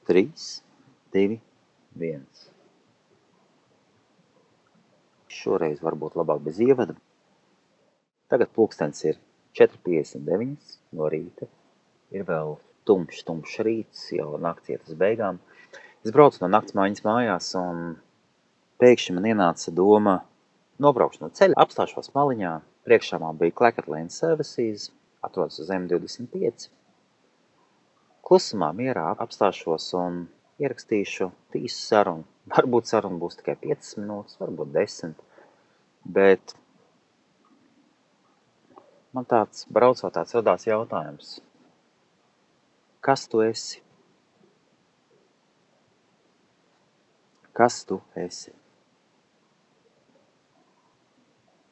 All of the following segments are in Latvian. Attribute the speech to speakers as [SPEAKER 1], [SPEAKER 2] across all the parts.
[SPEAKER 1] 3, 2, 1. Šoreiz varbūt labāk bez ievada. Tagad pulkstens ir 4:59 no rīta. Ir vēl tumšs rīts, jau nakts iet uz beigām. Es braucu no naktsmaiņas mājās un pēkšņi man ienāca doma nobraukšu no ceļa, apstāšos maliņā. Priekšā man bija Clackett Lane Services, atrodas uz M25. Klusumā, mierā apstāšos un ierakstīšu tīsu sarunu. Varbūt saruna būs tikai 5 minūtes, varbūt 10. Bet man braucot tāds radās jautājums. Kas tu esi? Kas tu esi?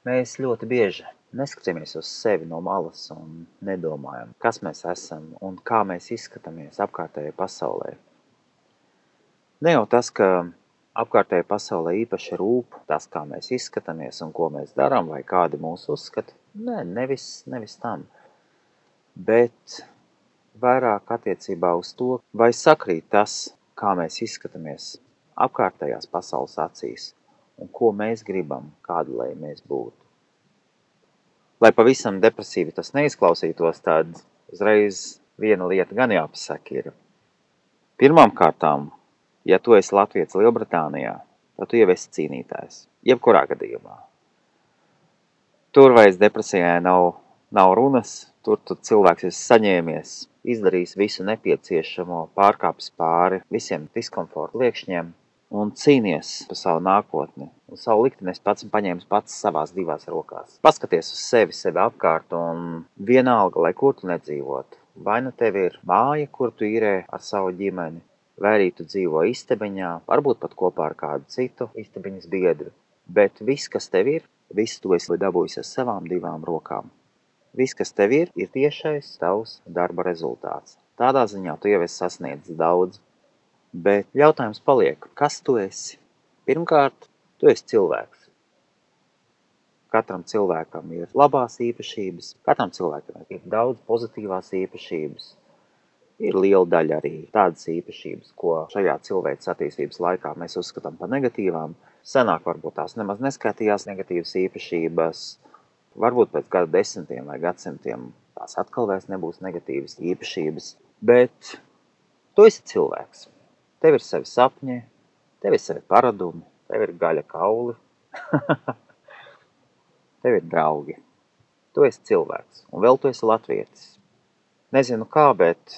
[SPEAKER 1] Mēs ļoti bieži neskatāmies uz sevi no malas un nedomājam, kas mēs esam un kā mēs izskatāmies apkārtējai pasaulē. Ne jau tas, ka apkārtējai pasaulē īpaši rūp tas, kā mēs izskatāmies un ko mēs darām vai kādi mūs uzskata. Nē, nevis tam. Bet vairāk attiecībā uz to, vai sakrīt tas, kā mēs izskatāmies apkārtējās pasaules acīs un ko mēs gribam, kādu lai mēs būtu. Lai pavisam depresīvi tas neizklausītos, tad uzreiz viena lieta gan jāpasaka ir. Pirmām kārtām, ja tu esi latvietis Lielbritānijā, tad tu jau esi cīnītājs, jebkurā gadījumā. Tur vairs depresijai nav runas, tur tu cilvēks esi saņēmies, izdarījis visu nepieciešamo, pārkāpis pāri visiem diskomforta liekšņiem un cīnies par savu nākotni. Un savu likteni es pats paņēmis pats savās divās rokās. Paskaties uz sevi apkārt un vienalga, lai kur tu nedzīvotu. Vai nu tev ir māja, kur tu īrē ar savu ģimeni, vai arī tu dzīvo istabiņā, varbūt pat kopā ar kādu citu istabiņas biedru. Bet viss, kas tev ir, viss tu esi dabūjis ar savām divām rokām. Viss, kas tev ir tiešais tavs darba rezultāts. Tādā ziņā tu jau esi sasniedzis daudz. Bet jautājums paliek, kas tu esi? Pirmkārt, tu esi cilvēks. Katram cilvēkam ir labās īpašības, katram cilvēkam ir daudz pozitīvās īpašības. Ir liela daļa arī tādas īpašības, ko šajā cilvēces attīstības laikā mēs uzskatām par negatīvām. Senāk varbūt tās nemaz neskaitījās negatīvas īpašības. Varbūt pēc gadu desmitiem vai gadsimtiem tās atkal vairs nebūs negatīvas īpašības. Bet tu esi cilvēks. Tev ir savi sapņi, tev ir savi paradumi, tev ir gaļa kauli, tev ir draugi. Tu esi cilvēks, un vēl tu esi latvietis. Nezinu kā, bet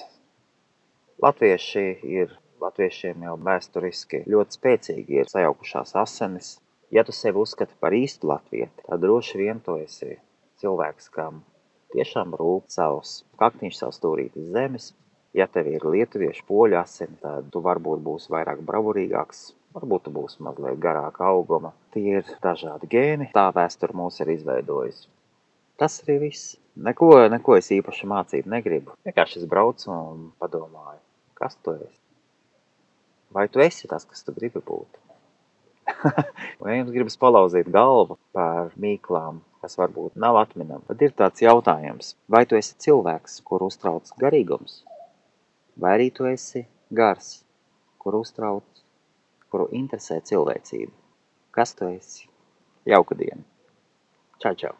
[SPEAKER 1] latviešiem jau vēsturiski ļoti spēcīgi ir sajaukušās asinis. Ja tu sevi uzskati par īstu latvieti, tad droši vien tu esi cilvēks, kam tiešām rūp savs kaktiņš, savs stūrītis zemes. Ja tev ir lietuviešu poļu asini, tad tu varbūt būsi vairāk bravurīgāks, varbūt tu būsi mazliet garāka auguma. Tie ir dažādi gēni, tā vēsture mūs ir izveidojusi. Tas arī viss. Neko es īpaši mācīt negribu. Vienkārši es braucu un padomāju, kas tu esi? Vai tu esi tas, kas tu gribi būt? Vai jums gribas palauzīt galvu par mīklām, kas varbūt nav atminam? Tad ir tāds jautājums, vai tu esi cilvēks, kur uztrauc garīgums? Vai arī tu esi gars, kuru interesē cilvēcība? Kas tu esi? Jauka diena. Čau, čau.